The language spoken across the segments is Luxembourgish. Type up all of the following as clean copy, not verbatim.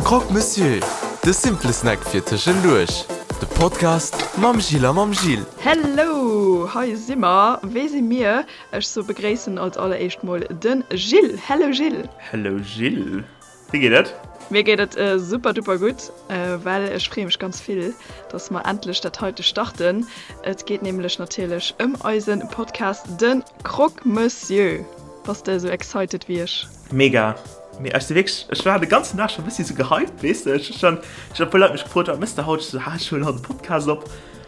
Croque Monsieur, de simple Snack fir tëschenduerch. De Podcast mam Jill a mam Gilles. Hello, hei si mer. Wee si mir? Ech so begréissen als alleréischt mol de Gilles. Hello Gilles. Hello Gilles. Wéi geet et? Mir geet et super duper gutt, well ech freeë mech ganz vill, dass mer endlech dat heite starten. Et geet nämlech natierlech ëm eise Podcast de Croque Monsieur. Bass de esou excited wéi ech? Mega! Mee ech si wierklech, ech war de ganzen Dag scho bëssi sou gehypt, weess de. Ech hu schonn, ech hunn e puer Leit mech gefrot, wat méchs de haut? Ech sou, ha, ech huelen haut e Podcast op.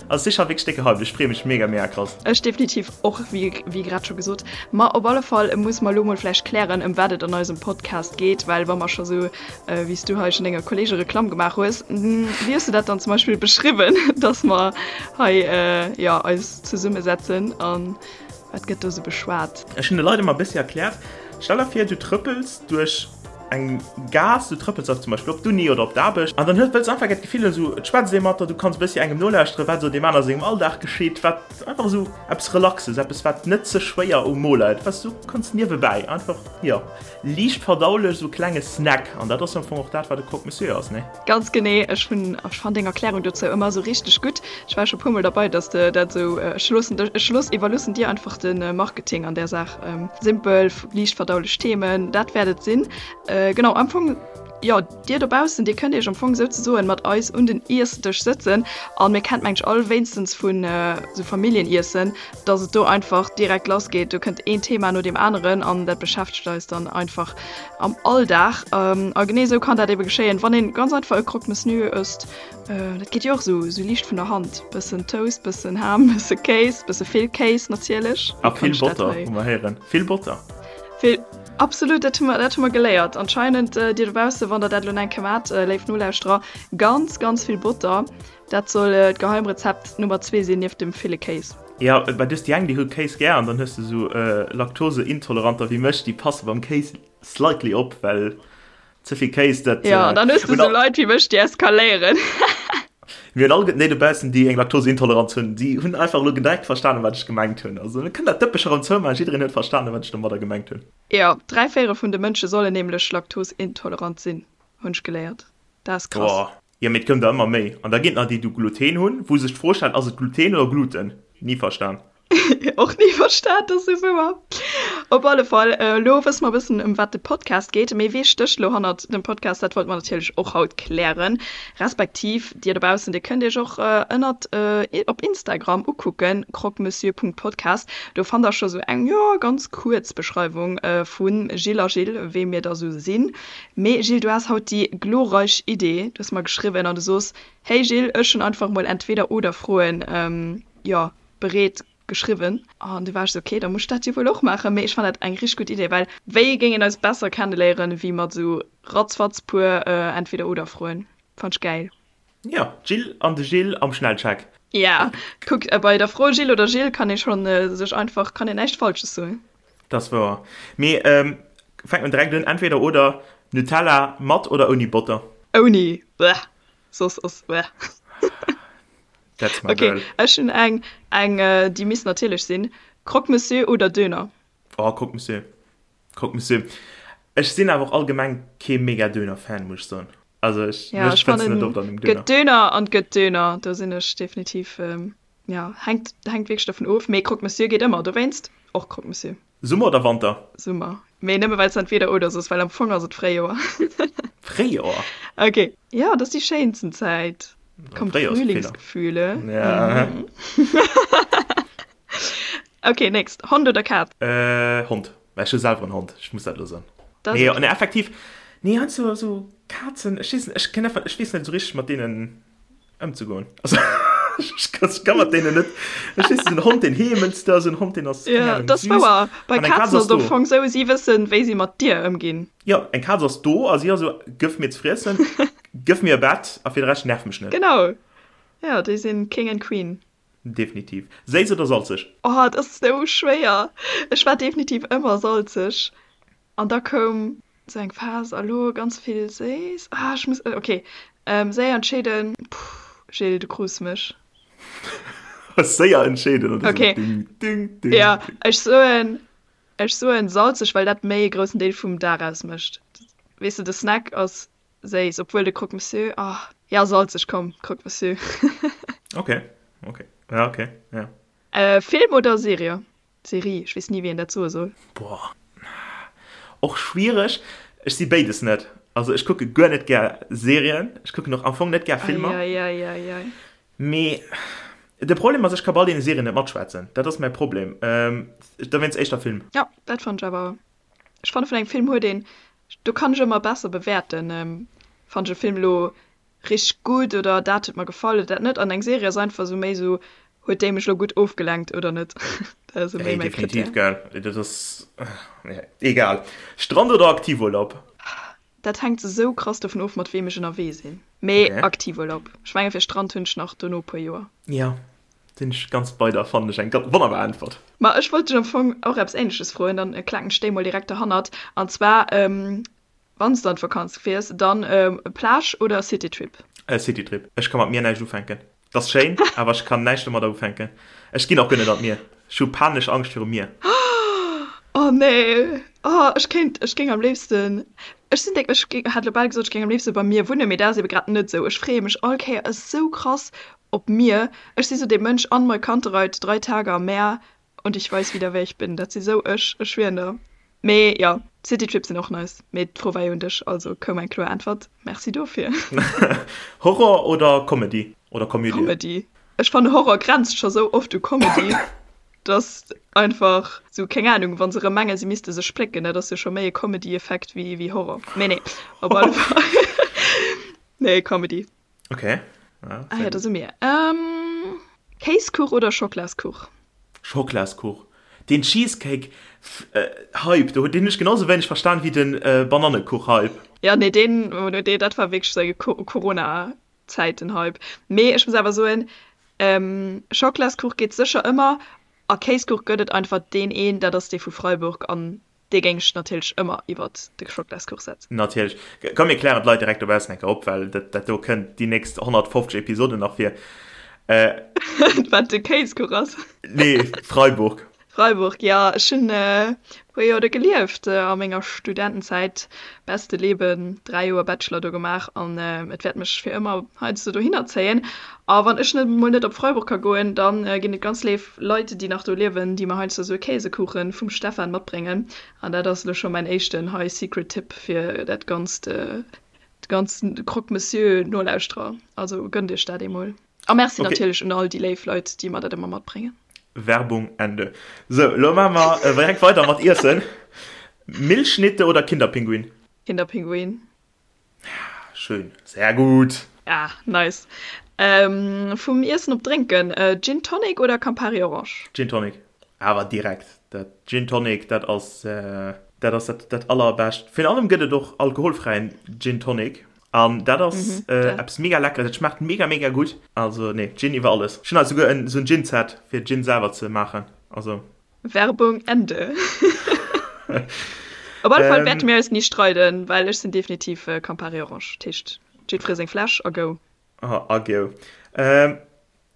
Also si scho wierklech déck gehypt, ech freeë mech mega, mega krass. Ech definitiv och, wéi wéi grad scho gesot. Ma op alle Fall musse mer elo mol vläicht klären, ëm wat et an eisem Podcast geet, well wa mer scho sou, wéi s du hei schon denger Kollege Reklamm gemaach hues, wéi hues du dat dann zum Beispill beschriwwen, dass mer hei, jo, eis zesummesetzen an Wat gëtt do sou beschwat? Ech hunn de Leit ëmmer e bëssi erkläert, stell der vir, du trëppels duerch eng Gaass, du trëppels zum Beispill op d'Uni oder op d'Aarbecht an dann hues, wëlls einfach gär d'Gefill hunn, esou et schwätzt ee mat der, du kanns e bëssi engem nolauschteren, wat esou deem aner sengem Alldag geschitt, wat einfach esou eppes Relaxes, eppes wat net ze schwéier um Mo läit, wat s du kanns niewebäi einfach, jo, liicht verdaulech, esou e klenge Snack an dat ass am Fong och dat, wat e Croque Monsieur ass, nee? Ganz genee, ech hunn, ech fann deng Erklärung dozou ëmmer esou richteg gutt. Ech war scho puer mol derbei, dass de dat esou, ech loossen dech, ech looss, iwwerloossen dir einfach de Marketing an där Saach. Simpel, liicht verdaulech Themen, dat wäert et sinn. Genau, am Fong, jo, dir dobaussen, dir kënnt iech am Fong souzesoen mat eis un den Iessdësch sëtzen an mir kennt mengt all wéinstens vun esou Familljeniessen, dass et do einfach direkt lass geet. Do kënnt een Thema no deem aneren an dat beschäftegt eis dann einfach am Alldag. A genee esou kann dat ebe geschéien, wann een ganz einfach e Croque Monsieur ësst. Dat geet jo och esou esou liicht vun der Hand. Bëssen Toast, bëssen Ham, bësse Kéis, bësse vill Kéis natierlech. A vill Botter, hu mer héieren. Vill Botter. Vill, absolut, dat hu mer, dat hu mer geléiert. Anscheinend, dir dobausse, wann der dat elo eng Kéier maacht, léif Nolauschterer, ganz, ganz vill Botter. Dat soll d'Geheimrezept Nummer zwee sinn, nieft dem ville Kéis. Jo, well du hues déi eng, déi hu Kéis gär an dann hues de sou Laktoseintoleranter wéi mech, déi passe beim Kéis slightly op, well ze vill Kéis, dat. Jo, an dann hues de sou Leit wéi mech, déi eskaléieren. Mir hunn all déi dobaussen, déi eng Laktoseintoleranz hunn, déi hunn einfach elo direkt verstanen, wat ech gemengt hunn. Also mir kënnen dat Dëppech erëm zoumaachen, jiddereen huet verstanen, wat ech domadder gemengt hunn. Jo, 3/4 vun de Mënsche sollen nämlech laktoseintolerant sinn, hunn ech geléiert. Dat ass krass. Boah. Jo, mee et koum der ëmmer méi. An da ginn et nach déi, déi Gluten hunn, wou sech d'Fro stellt, ass et Gluten oder Gluten? Ni verstan. Och ni verstan, dat ass esou wouer. Op alle Fall, elo wësse mer e bëssen, ëm wat de Podcast geet. Mee wee stécht elo hannert dem Podcast? Dat wollte mer natierlech och haut klären. Respektiv, dir dobaussen, dir kënnt iech och ënnert op Instagram ukucken, croquemessieur.podcast. Do fannt der scho sou eng, jo, ganz kuerz Beschreiwung vu Gilles a Gilles, wee mir da sou sinn. Mee Gilles, du has haut déi glorreich Idee, du hues mer geschriwwen an du soos, Hey Gilles, ech hunn einfach mol Entweder-oder-Froen, jo, bereet geschriwwen. An du war ech sou, ok, da muss ech dat jo wuel och maachen. Mee ech fannen dat eng richteg gutt Idee, well wéi géing een eis besser kenneléieren, wéi mat sou ratzfatz puer Entweder-oder-Froen. Fannt ech gäil. Jo, d'Jill an de Gilles am Schnellcheck. Ja, kuck, bei der Fro Gilles oder Jill kann ee schonn sech einfach, kann een näischt Falsches soen. Dat ass wouer. Mee fänkt mer direkt un, entweder oder, Nutella mat oder ouni Botter? Ouni, bleh, soss ass bleh. That's my Ok, girl. ech hunn eng, eng déi misst natierlech sinn, Croque Monsieur oder Döner? Oh, Croque Monsieur, Croque Monsieur. Ech sinn awer och allgemeng kee mega Döner-Fan, muss ech soen. Also ech, Ja, mech ech fënns de net fannen, oft an engem Döner. gëtt Döner an gëtt Döner, do sinn ech definitiv. Ja, hänkt, hänkt wierklech dovun of. Mee Croque Monsieur geet ëmmer, dowéinst och Croque Monsieur. Summer oder Wanter? Summer. Mee nëmme well s entweder oder soos, well am Fong ass et Fréijoer. Fréijoer? Ok. Jo, dat ass déi schéinsten Zäit. Kommt Fréijoer ass e Feeler. Frühlingsgefühle. Ja. Ok, next. Hond oder Kaz? Hond. Well ech hu selwer en Hond, ech muss dat elo soen. Dat ass Nee, ok. nee, effektiv, nee, heiansdo esou Kazen, ech weess net, ech kenn einfach, ech weess net esou richteg mat deenen. Ëmzegoen. Also, ech kann, ech kann mat deenen net. Ech weess, en Hond, deen heemelt da, esou en Hond, deen ass, keng Ja, Ahnung, dat ass süß. wouer. Bei An eng Kaz Kazen ass ass et am do. Fong sou, si wëssen, wéi si mat dir ëmginn. Jo, eng Kaz ass do a si ass esou, Gëff mir ze friessen, gëff mir e Bett a fir de Rescht nerv mech net. Genau. Jo, déi sinn King and Queen. Definitiv. Séiss oder salzeg? Oh, et ass sou schwéier. Ech war definitiv ëmmer salzeg. An da koum sou eng Phas, a lo ganz vill séiss. Ah, ech muss, ok, séier entscheeden. Puh, Gilles, du krus mech. Séier entscheeden oder sou? Ok, Ding, ding, ding, jo, ding. ech soen, ech soen salzeg, well dat méi e groussen Deel vum Dag ausmécht. Weess de, de Snack ass. Séiss, obwuel de Croque Monsieur, ah, ja salzeg, komm, Croque Monsieur. Ok, ok, ja, ok, ja. Film oder Serie? Serie, ech weess ni wéi een dat soe soll. Boah, och schwiereg. Ech si béides net. Also ech kucke guer net gär Serien, ech kucken och am Fong net gär Filmer. Eieieiei. Mee de Problem ass, ech ka bei all deene Serien net matschwätzen. Dat ass mäi Problem. Dowéinst éischter Film. Jo, dat fannen ech awer. Ech fanne vun engem Film huet een, do kann ech ëmmer besser bewäerten, fannen ech e Film elo richteg gutt oder dat huet mer gefall oder dat net. An eng Serie ass einfach esou méi esou, huet déi mech elo gutt ofgelenkt oder net. Dat ass esou méi Hey, mäi definitiv, Krittär. gell. Dat ass, egal. Strand oder Aktivurlaub? Dat hänkt esou krass dovun of, mat weem ech ënnerwee sinn. Mee Okay. Aktivurlaub. Ech menge fir Strand hunn ech nach dono e puer Joer. Jo, sinn ech ganz bei der. Fannen ech eng ganz wonnerbar Äntwert. Ma ech wollt dech am Fong och eppes Ähnleches froen, dann klaken ech déi mol direkt derhannert. An zwar, Wann s de an d'Vakanz fiers, dann Plage oder Citytrip? Citytrip. Ech ka mat Mier näischt ufänken. Et ass schéin, awer ech kann näischt domadder ufänken. Ech ginn och guer net an d'Mier. Ech hu panesch Angscht virum Mier. Oh nee, oh ech kéint, ech géing am léifsten, ech sinn déck, ech géing, hat elo bal gesot, ech géing am léifste beim Mier wunnen, mee dat ass ebe grad net esou. Ech freeë mech all Kéier esou krass op d'Mier. Ech si sou dee Mënsch, an Molkantereit, drei Tage am Meer und ich weiß wieder wer ich bin. Dat si sou ech, ech schwieren der. Mee jo, Citytrips sinn och nice. Mee d'Fro war jo un dech, also koum eng kloer Äntwert. Merci dofir. Horror oder Comedy? Oder Komödie? Comedy. Ech fannen Horror grenzt scho sou oft u Comedy, dass einfach sou, keng Ahnung, wa se rëm mengen, se misste sech splécken, dat ass jo scho méi e Comedy-Effekt wéi wéi Horror. Mee nee, op alle Fall. Nee, Comedy. Ok. Ah ja, da si mir. Kéiskuch oder Schoklaskuch? Schoklaskuch. Den Cheesecake Hype, do deen hunn ech genau sou wéineg verstan wéi den Banannekuch Hype. Ja nee deen, deen dat war wierklech sou eng Corona Zäiten Hype. Mee ech muss awer soen, Schoklaskuch geet sécher ëmmer a Kéiskuch gëtt et einfach deen een, dat ass dee vu Freiburg an Dee géing ech natierlech ëmmer iwwert de Schoklaskuch setzen. Natierlech. Komm mir klären d'Leit direkt dobaussen eng Kéier op, well dat, dat do kënnt déi nächst 150 Episoden nach vir. Wat de Kéiskuch ass? Nee, Freiburg. Freiburg, jo. Ech hunn e puer Joer do gelieft a menger Studentenzäit. Beste Leben, 3 Joer Bachelor do gemaach an et wäert mech fir ëmmer heiansdo dohinner zéien. A wann ech net mol net op Freiburg ka goen, dann ginn et ganz léif Leit, déi nach do liewen, déi mer heiansdo esou e Käsekuchen vum Stefan matbréngen. An dat ass elo scho mäin éischten hei Secret Tipp fir dat ganzt, de ganzen Croque Monsieur Nolauschterer. Also gënnt iech dat eemol. A Merci okay. natierlech un all déi léif Leit, déi mer dat ëmmer matbréngen. Werbung Ende. Sou, elo maache mer äh, direkt weider mat Iessen. Milchschnitte oder Kinderpinguin? Kinderpinguin. Schön, sehr gut. Ah, nice. Ähm, vum Iessen op Drénken, äh, Gin Tonic oder Campari Orange? Gin Tonic, awer direkt. Dat Gin Tonic, dat ass, äh, dat ass dat, dat allerbescht. Virun allem gëtt et och alkoholfräien Gin Tonic. An dat ass mhm, äh, eppes mega lecker, dat schmaacht mega mega gutt. Also nee, Gin iwwer alles. Ech hunn hei souguer en, sou en Gin-Set fir Gin selwer ze maachen. Also. Werbung Ende. Op alle Fall wäerte mir eis ni streiden, well ech sinn definitiv Campari Orange. Dat heescht, jiddweree seng Fläsch a go. A go. Ähm,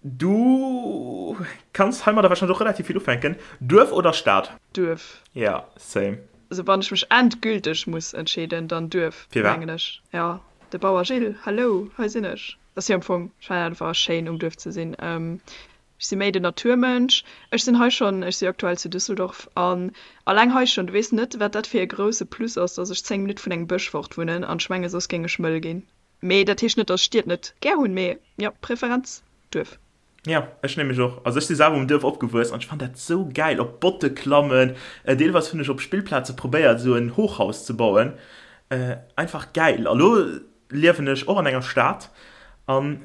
du kanns heimadder wahrscheinlech och relativ vill ufänken. Duerf oder Stad? Duerf. Ja, same. Also wann ech mech endgülteg muss entscheeden, dann Duerf, mengen ech. Ja, de Bauer Gilles, hallo, hei sinn ech. Ass jo am Fong, ech fannen einfach schéin um Duerf ze sinn. Ech si méi den Naturmënsch. Ech sinn hei schonn, ech si aktuell zu Düsseldorf an alleng hei schonn, du weess net, wat dat fir e grousse Plus ass, dass ech 10 Minutte vun engem Bësch fort wunnen an ech menge soss géing ech mëll ginn. Mee dat heescht net, dass ech Stied net gär hunn, mee jo, Preferenz Duerf. Jo, ech nämlech och. Also ech si selwer um Duerf opgewuess an ech fannen dat sou gäil, op Botte klammen. Deelweis hunn ech op Spillplaze probéiert esou en Hochhaus ze bauen. Einfach gäil. A lo liewen ech och an enger Stad an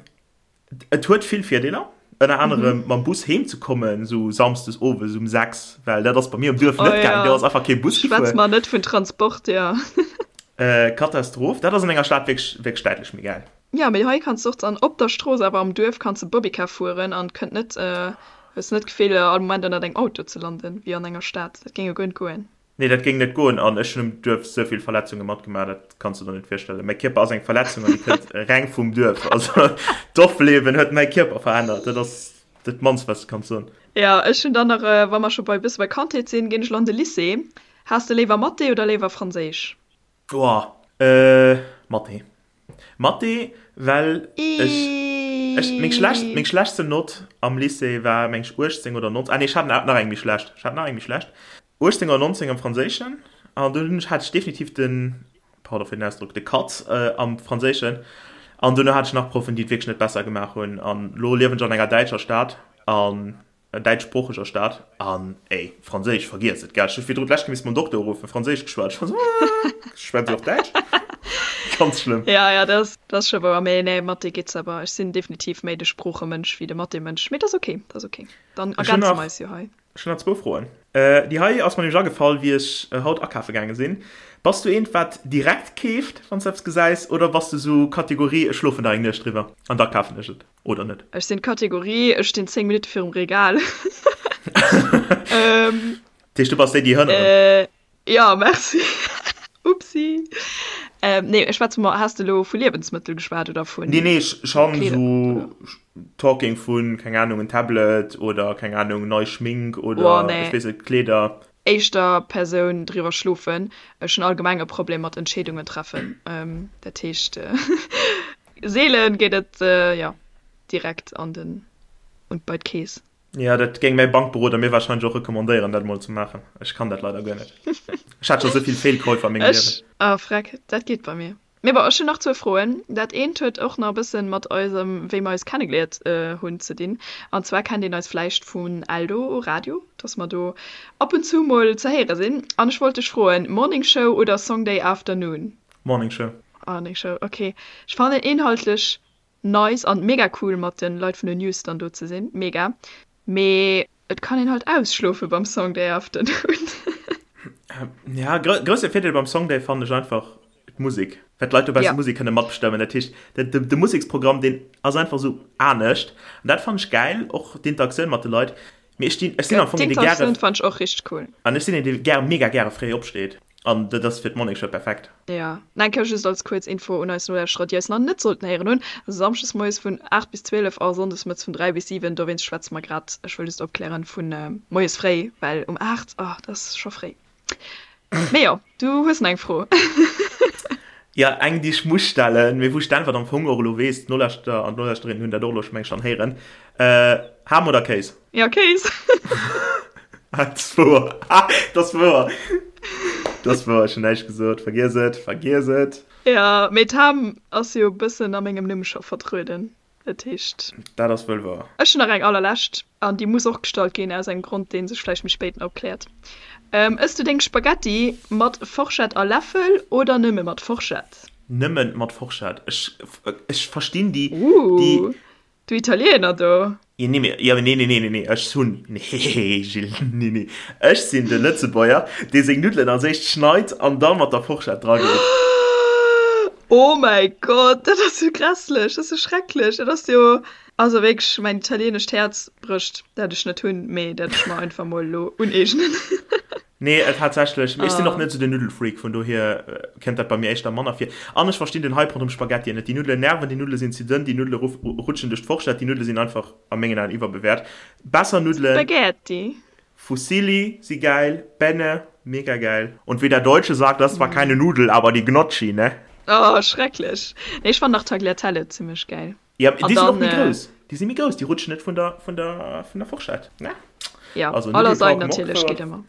Et huet vill Virdeeler, ënner anerem mam Bus heem ze kommen, sou samsdes owes um 6, well dat ass bei mir um Duerf net gaangen, do ass einfach kee Bus gefuer. Schwätz mer net vun Transport, jo. Katastroph. Dat ass an enger Stad wierklech, wierklech däitlech méi gäil. Jo, mee hei kanns de och dann op der Strooss, awer am Duerf kanns de Bobbycar fueren an kënnt net, hues net d'Gefill all Moment ënnert engem Auto ze landen, wéi an enger Stad. Dat géing jo guer net goen. Nee, dat géing net goen an ech hunn um Duerf sou vill Verletzunge matgemaach, dat kanns du der net virstellen. Mäi Kierper ass eng Verletzung an déi kënnt reng vum Duerf. Also d'Dorfliewen huet mäi Kierper verännert, dat ass dat mannst wat ech kann soen. Jo, ech hunn dann nach, wa mer scho bei bësse bei Kandheet sinn, ginn ech lo an de Lycée. Has de léiwer Mathé oder léiwer Franséisch? Boah, Mathé. Mathé, well ech, ech, meng schlecht, meng schlechtsten Nott am Lycée war meng ech 18 oder 19, ah nee, ech hat nach eng méi schlecht, ech hat nach eng méi schlecht, 18 oder 19 am Franséischen an dunn hunn ech, hat ech definitiv den, pardon fir den Ausdrock, de Katz am Franséischen an duerno hat ech nach Proffen, déi et wierklech net besser gemaach hunn an lo liewen ech an enger däitscher Stad an däitschsproocheger Stad an ey, Franséisch, vergiess et, gell, ech hu virdru d'lescht Kéier misst mam Dokter uruffen, Franséisch geschwat, ech war sou, schwätzt Dir och Däitsch? Ganz schlëmm. Ja, ja, dat ass scho wouer, mee nee, Mathé geet awer, ech sinn definitiv méi de Sproochemënsch wéi de Mathé-Mënsch, mee dat ass ok, dat ass ok, dann ergänze mer eis jo hei. Ech hunn nach zwou Froen. Déi hei ass mer nämlech agefall, wéi ech haut akafe gaange sinn. Bass du eent, wat direkt keeft, wann s de eppes gesäis, oder bass du sou Kategorie, ech schlofen nach eng Nuecht driwwer an da kafen ech et, oder net? Ech sinn d'Kategorie, ech stinn 10 Minutte virum Regal. Dat heescht, du bass déi, déi hënneren? Jo, merci. Upsi. Nee, ech schwätze mer, has de elo vu Liewensmëttel geschwat oder vu Nee, nee, ech han esou talking vun, keng Ahnung, en Tablet oder, keng Ahnung, nei Schmink oder, ech weess net, Kleeder. Éischter Persoun driwwer schlofen. Ech hunn allgemeng e Problem mat Entscheedungen treffen. Dat heescht, seelen geet et, jo, direkt an den, und bei d'Keess. Jo, dat géing mäi Bankberoder mir warscheinlech och recommandéieren, dat emol ze maachen. Ech kann dat leider guer net. Ech hat scho sou vill Feelkäufer a mengem Liewen. Ah, freck, dat geet bei mir. Mee bon, ech hunn nach zwou Froen. Dat eent huet och nach e bëssen mat eisem, wéi mer eis kennegeliert hunn, ze dinn. An zwar kennt een eis vläicht vun Eldo Radio, dass mer do ab und zu mol ze héiere sinn. An ech wollt dech froen, Morning Show oder Song Day Afternoon? Morning Show. Morning Show, ok. Ech fannen inhaltlech Nice an mega cool mat den Leit vun den News dann do ze sin, mega, mee et kann een halt ausschlofen beim Song Day Afternoon. Ja, grousse Virdeel beim Song Day fannen ech einfach d'Musek, well d'Leit dobausse Musek kënne matbestëmmen. Dat heescht, de Museksprogramm deen ass einfach esou anescht an dat fannen ech gäil, och d'Interaktioun mat de Leit. Mee ech stinn, ech sinn am Fong een, dee gäre. D'Interaktioun fannen ech och richteg cool. An ech sinn een, dee gär, mega gäre fréi opsteet. An dat ass fir d'Morning Show perfekt. Jo, eng Kéier just als kuerz Info un eis Nolauschterer, déi eis nach net sollten héieren hunn, Samschdes moies vun 8 bis 12 a sonndes mëttes vun 3 bis 7. Dowéinst schwätze mer grad, ech wëll just opklären, vu moies fréi, well um 8, oh, dat ass scho fréi. Mee jo, du hues nach eng Fro. Jo, eng, déi ech muss stellen, mee wou ech d'Äntwert am Fong och elo weess, d'Nolauschterer an d'Nolauschterinnen hunn dat och elo scho, meng ech, schonn héieren, Ham oder Kéis? Jo, Kéis. Dat ass wouer. Dat ass wouer. Dat ass wouer, ech hunn näischt gesot. Vergiess et, vergiess et. Jo, mee d'Ham ass jo e bëssen a mengem Numm scho vertrueden. Dat heescht. Dat ass wuel wouer. Ech hunn nach eng allerlescht, an déi muss och gestallt ginn, aus engem Grond, dee sech vläicht méi spéit nach opkläert. Ëss du deng Spaghetti mat Forschett a Läffel oder nëmme mat Forschett? Nëmmen mat Forschett. Ech, ech verstinn déi, déi. Ooh. Du Italiener do! Jo, nee, mee, jo, nee, nee, nee, nee, nee, ech hunn, nee, Gilles, nee, nee, ech sinn de Lëtzebuerger, dee seng Nuddelen als éischt schneit an da mat der Forschett drageet. Oh mäi Gott, dat ass jo grässlech, dat ass jo schrecklech, dat ass jo, also wierklech, mäin italienescht Häerz brécht, dat ech net hunn, mee dat ech mer einfach mol elo uneegnen. Nee, tatsächlech. Mee ech sinn och net esou den Nuddelfreak, vun dohier kënnt dat bei mir éischter manner vir. An ech verstinn den Hype ronderëm Spaghettien net. Déi Nuddelen nerven, déi Nuddele sinn ze dënn, déi Nuddele rutschen duerch d'Forschett, déi Nuddele sinn einfach a mengen Aen iwwerbewäert. Besser Nuddelen. Spaghetti. Fusilli si gäil, Penne, mega gäil. Und wie der Deutsche sagt, das war keine Nudel, aber die Gnocchi, ne? Oh, schrecklech. Nee, ech fannen nach Tagliatelle zimmlech gäil. Ja, déi sinn och méi grouss. Déi si méi grouss, déi rutschen net vun der, vun der, vun der Forschett. Ne? Ja, also, a Lasagne natierlech geet ëmmer.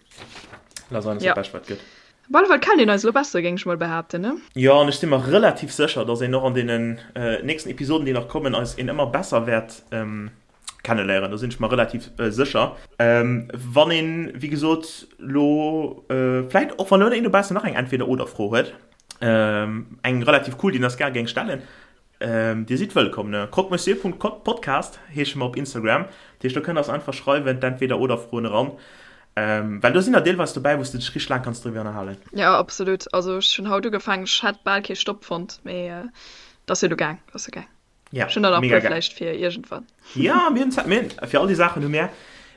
Lasagne ass dat Bescht, wat gëtt. Op alle Fall kennt een eis elo besser, géing ech mol behaapten, ne? Jo, an ech si mer relativ sécher, dass een och an deenen nächsten Episoden, déi nach kommen, eis een ëmmer besser wäert kenneléieren. Do sinn ech mer relativ sécher. Wann een, wéi gesot, elo vläit och, wann elo een dobaussen nach eng Entweder-oder-Fro huet, eng relativ cool, déi en eis gär géing stellen, Dir sidd wëllkomm, ne? Croquemessieur.podcast heesche mer op Instagram. Dat heescht, do kënnt der eis einfach schreiwen, d'Entweder-oder-Froen eran. Well do sinn der deelweis dobäi, wou s de dech richteg laang kanns driwwer ënnerhalen. Jo, absolut. Also ech hunn haut ugefaangen, ech hätt bal kee Stopp fonnt, mee et ass jo elo gaang, et ass jo gaang. Ja, Ech hunn der nach e puer vläicht fir iergendwann. Ja, mir hunn Zäit, mir hunn fir all déi Saachen hu mir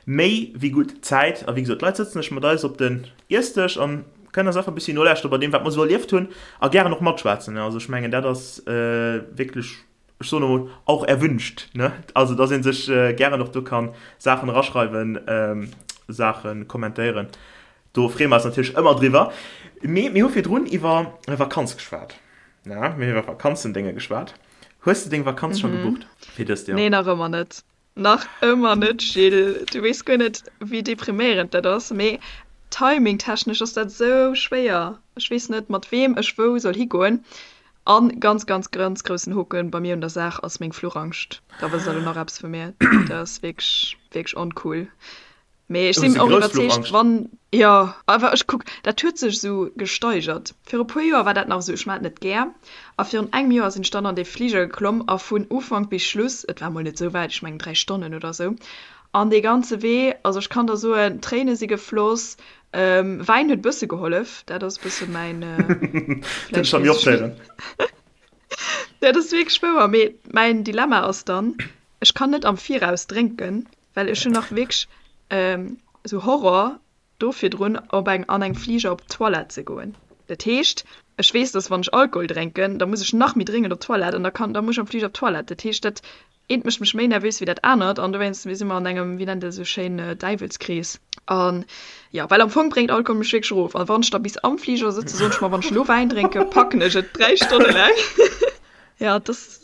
méi wéi gutt Zäit. A wéi gesot, d'Leit sëtzen sech mat eis op den Iessdësch an kënnen eis einfach e bëssi nolauschteren bei deem, wat mer esou erlieft hunn a gären och matschwätzen. Also ech mengen, dat ass wierklech, ech soen emol, auch erwünscht, ne? Also dass ee sech gären och do ka Saachen eraschreiwen, Saache kommentéieren. Do freeë mer eis natierlech ëmmer driwwer. Mee mir hu virdrun iwwer Vakanz geschwat. Na, mir hunn iwwer Vakanzendénge geschwat. Hues de deng Vakanz scho gebucht fir dëst Joer? Nee, nach ëmmer net. Nach ëmmer net, Gilles. Du weess guer net, wéi depriméierend dat ass. Mee timingtechnesch ass dat esou schwéier. Ech weess net, mat weem ech wou soll higoen. An ganz, ganz, ganz groussen Hoken bei mir un der Saach ass meng Fluchangscht. Da wësst der elo nach eppes vu mir. Dat ass wierklech, wierklech oncool. Mee ech sinn och iwwerzeegt, wann, jo, awer ech kuck, dat huet sech esou gesteigert. Viru puer Joer war dat nach esou, ech maan et net gär. A virun engem Joer sinn ech dann an dee Fliger geklomm a vun Ufank bis Schluss, et war mol net esou wäit, ech mengen 3 Stonnen oder esou, an dee ganze Wee, also ech kann der soen, Tréine si gefloss, Wäin huet bësse gehollef, dat ass bësse mäin, vläicht weess ech net. Dat ass wierklech wouer, mee mäin Dilemma ass dann, ech kann net am Viraus drénken, Well ech hunn nach wierklech esou Horror do virdrun op eng an engem Fliger op d'Toilette ze goen. Dat heescht, ech weess, dass wann ech Alkohol drénken, da muss ech nach méi dréngend op d'Toilette an da kann da muss ech am Fliger op d'Toilette. Dat heescht, dat eent mécht mech méi nervös wéi dat anert an dowéinst si mer an engem, wéi nennt een dat esou schéin, Däiwelskrees. An jo, well am Fong bréngt Alkohol mech wierklech erof. An wann ech da bis am Fliger sëtzen, soen ech mer, wann ech elo Wäin drénken, packen ech et 3 Stonne laang. Jo, dass,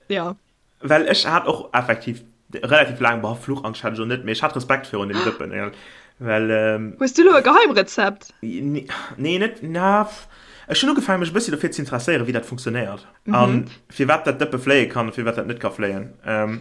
jo. Well ech hat och effektiv relativ laang, boah, Fluchangst hat ech och net, mee ech hat Respekt virun dem Dëppen, ja. Well, ähm, Hues du elo e Geheimrezept? Nee, net, na, ech hunn ugefaangen, mech e bëssi dofir ze interesséieren, wéi dat funktionéiert. Mhm. An firwat dat Dëppe fléie kann a firwat dat net ka fléien. Ähm,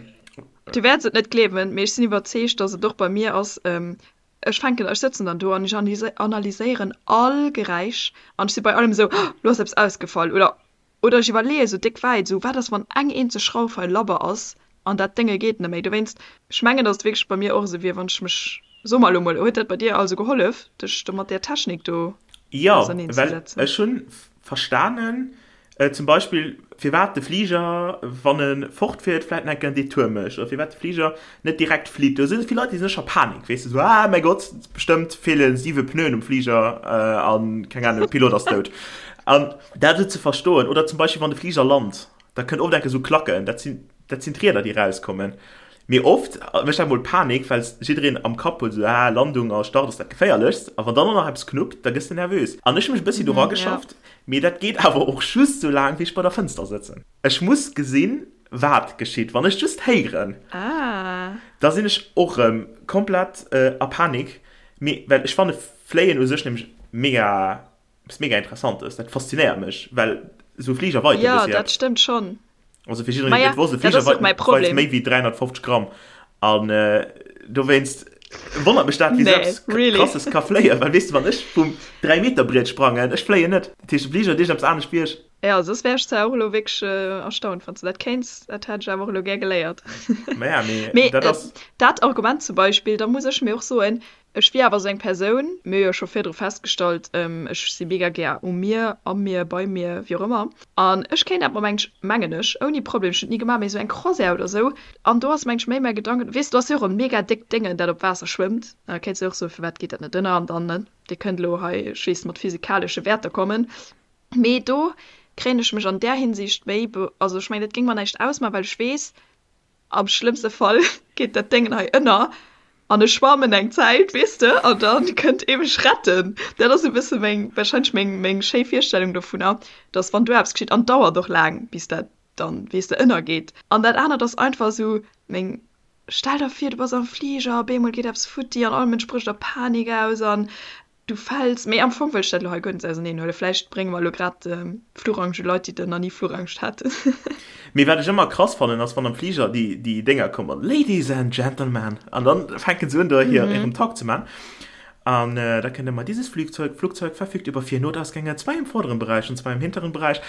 Du wäerts et net gleewen, mee ech sinn iwwerzeegt, dass et och bei mir ass, ähm, ech fänken, ech sëtzen dann do an ech analyséieren all Geräisch an ech si bei allem esou, Oh, lo ass eppes ausgefall oder Oder ech iwwerleeë sou déck wäit, esou, wat ass wann eng eenzeg Schrauf hei labber ass an dat Dénge geet net méi. Dowéinst, ech mengen, datt et wierklech bei mir och esou wier, wann ech mech, so mer elo mol, huet dat bei dir also gehollef, dech do mat där Technik do Jo, well auserneenzesetzen? ech hunn verstanen, zum Beispill firwat de Fliger, wann e fortfiert, vläit nach eng Kéier en Detour mécht oder firwat de Fliger net direkt flitt. Do si vill Leit, déi sinn scho Panik, weess de, esou, ah mäi Gott, bestëmmt feele siwe Pneuen um Fliger an, keng Ahnung, de Pilot ass dout. An dat esou ze verstoen, oder zum Beispill wann de Fliger lant, da kënnt oft enke sou Klacken, dat sinn, dat sinn d'Rieder déi rauskommen. Mee oft mécht dat mol Panik, well jiddereen am Kapp huet esou, ah Landung a Start ass dat geféierlechst, a wann dann och nach eppes knuppt, da gëss de nervös. An ech hu mech e bëssi do rageschafft, mee dat geet awer och just sou laang wéi ech bei der Fënster sëtzen. Ech muss gesinn, wat geschitt. Wann ech just héieren, da sinn ech och erëm komplett a Panik, mee well ech fanne Fléien u sech nämlech mega Eppes mega Interessantes, dat faszinéiert mech, well esou e Fliger weit e Jo, bëssi dat eppes. stëmmt schonn. Also fir jiddereen, deen et net wosst, e Fliger weit weit méi wéi 350 Gramm. An dowéinst wonnert mech dat, wéi esou eppes Krasses ka fléien. Well weess de, wann ech vum 3 Meter Briet sprangen, ech fléien net. Dat heescht, de Fliger huet iergendeppes anescht wéi ech. Jo, soss wär ech zwar och elo wierklech erstaunt, wann s de dat kéints. Dat hätt ech awer och elo gär geléiert. Maja, mee dat ass. Dat Argument zum Beispill, da muss ech mir och soen, Ech wier awer esou eng Persoun, mir hu jo scho virdru festgestallt, ech si mega gär um Mier, am Mier, beim Mier, wéi och ëmmer. An ech kéint dat mer mengt, mengen ech, ouni Problem, ech hunn et ni gemaach, mee esou eng Croisière oder esou, an do ass mengt ech méi mäi Gedanken, weess du, do ass jo och e mega déckt Déngen, dat op Waasser schwëmmt, da kéints du och soen, firwat geet dat net ënner an dann, ne, dir kënnt elo hei, ech weess, mat physikalesche Wäerter kommen, mee do kréien ech mech an där Hinsicht méi, also ech mengen, dat géing mer näischt ausmaachen, well ech weess, Am schlëmmste Fall geet dat Déngen hei ënner an ech schwammen eng Zäit, weess de, an da kënnt ee mech retten. Dat ass e bësse meng, warscheinlech meng, meng schéi Virstellung dovunner, dass wann do eppes geschitt, an et dauert och laang, bis dat dann, weess de, ënnergeet. An dat anert ass einfach esou meng, stell der vir, du bass am Fliger, op eemol geet eppes futti an all Mënsch brécht a Panik aus an Du fäls, mee am Fong wëll ech dat elo hei guer net auserneen huelen. Vläicht brénge mer elo grad Fluchangst u Leit, déi nach ni Fluchangst haten. Mee wat ech ëmmer krass fannen ass wann am Fliger déi déi Dénger kommen, Ladies and Gentlemen, an dann fänken se un do hir hiren Talk ze man an da kënnt ëmmer, Dieses Flugzeug Flugzeug verfügt über vier Notausgänge, zwei im vorderen Bereich und zwei im hinteren Bereich.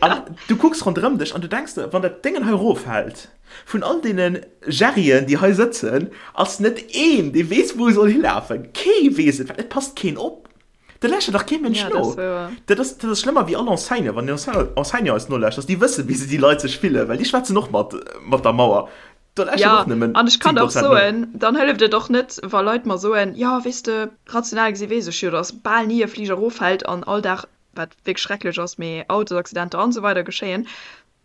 An du kucks ronderëm dech an du denks der, wann dat Déngen hei eroffält, Vun all deene Jerryen, déi hei sëtzen, ass net een, dee weess, wou e soll hilafen. Kee weess et, well et passt keen op. Do lauschtert dach kee Mënsch no. Dat ass, dat ass schlëmmer wéi all Enseignant. Wann den Enseignant eis nolauschtert, déi wëssen, wéi se déi Leit sech fillen, well déi schwätzen och mat, mat der Mauer. Do lauschtert och nëmmen 10 Prozent no. An ech kann der och soen, dann hëlleft et och net, wa Leit mer soen, jo, weess de, rational gesi weess ech jo, datt bal ni e Fliger eroffält an all Dag, wat wierklech schrecklech ass, mee Autosaccidenter an esou weider geschéien.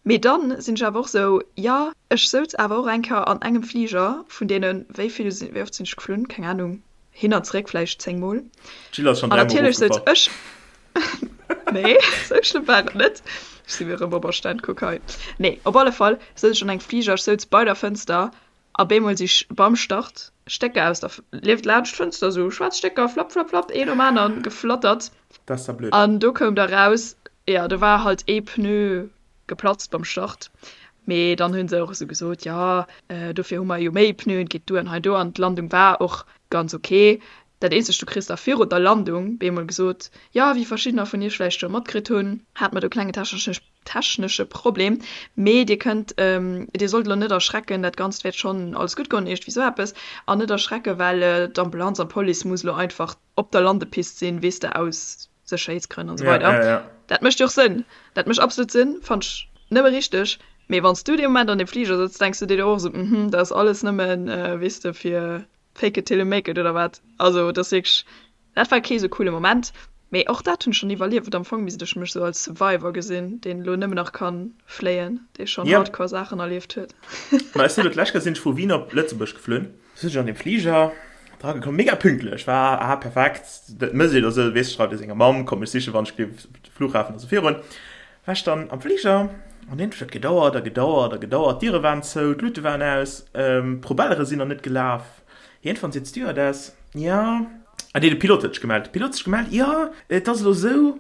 Mee dann sinn ech awer och sou, jo, ech souz awer och eng Kéier an engem Fliger vun deenen, wéi vill sinn, wéi oft sinn ech geflunn, keng Ahnung, hin an zréck vläicht 10 mol. D'Jill ass schonn An dräimol natierlech souz erofgefall. ech, Nee, sou schlëmm war et net. Ech si mir erëm op Erstand, kuck hei. Nee, op alle Fall souz ech an engem Fliger, ech souz bei der Fënster a bemol si beim Start Stécker aus der, lieft laanscht d'Fënster, sou schwaarz Stécker, flapp, flapp, flapp, een nom aneren geflattert. Dat ass da blöd. An do koum da raus, jo, do war halt ee Pneu geplatzt beim Start. Mee dann hu se och esou gesot, jo, dofir hu mer jo méi Pneuen, et geet duer an hei do. An d'Landung war och ganz ok. Dat eenzegt, du kriss da virun der Landung bemol gesot, jo, wéi verschiddener vun iech vläicht scho matkritt hunn, hate mer do e klenge technesche Problem, mee dir kënnt, dir sollt elo net erschrecken, dat Ganzt wäert schonn alles gutt goen, iergendwéi esou eppes, an net erschrecken, well d'Ambulanz an d'Police muss elo einfach op der Landepist sinn, weess de, aus Sécherheetsgrënn an esou weider. Ja, ja, ja. Dat mécht jo och Sënn. Dat mécht absolut Sënn, fannt ech nëmme richteg. Mee wann s du dee Moment an deem Fliger sëtz, denks du dir och esou, mhm, dat ass alles nëmmen, weess de, fir fake it till you make it oder wat. Also dat ass wierklech, dat war kee sou coole Moment. Mee och dat hunn ech schonn iwwerlieft. Am Fong misst ech mech sou als Survivor gesinn, deen elo nëmmen nach ka fléien, dee schonn Ja. hardcore Saachen erlieft huet. Ma ech sinn elo d'lescht Kéier sinn ech vu Wien op Lëtzebuerg geflunn. Sinn ech an deem Fliger dra gekomm, mega pünktlech, war ah perfekt, dat mëss een esou, weess, schreift ee senger Mamm, komm mech sichen, wann ech géif de Flughafen a sou virun. War ech dann am Fliger an iergendwéi huet gedauert a gedauert a gedauert, d'Diere waren zou, d'Luute waren aus, d'Propellere sinn nach net gelaf. Iergendwann seet d'Stewardess, jo, ah nee, de Pilot huet sech gemellt, de Pilot huet sech gemellt, jo, et ass elo esou,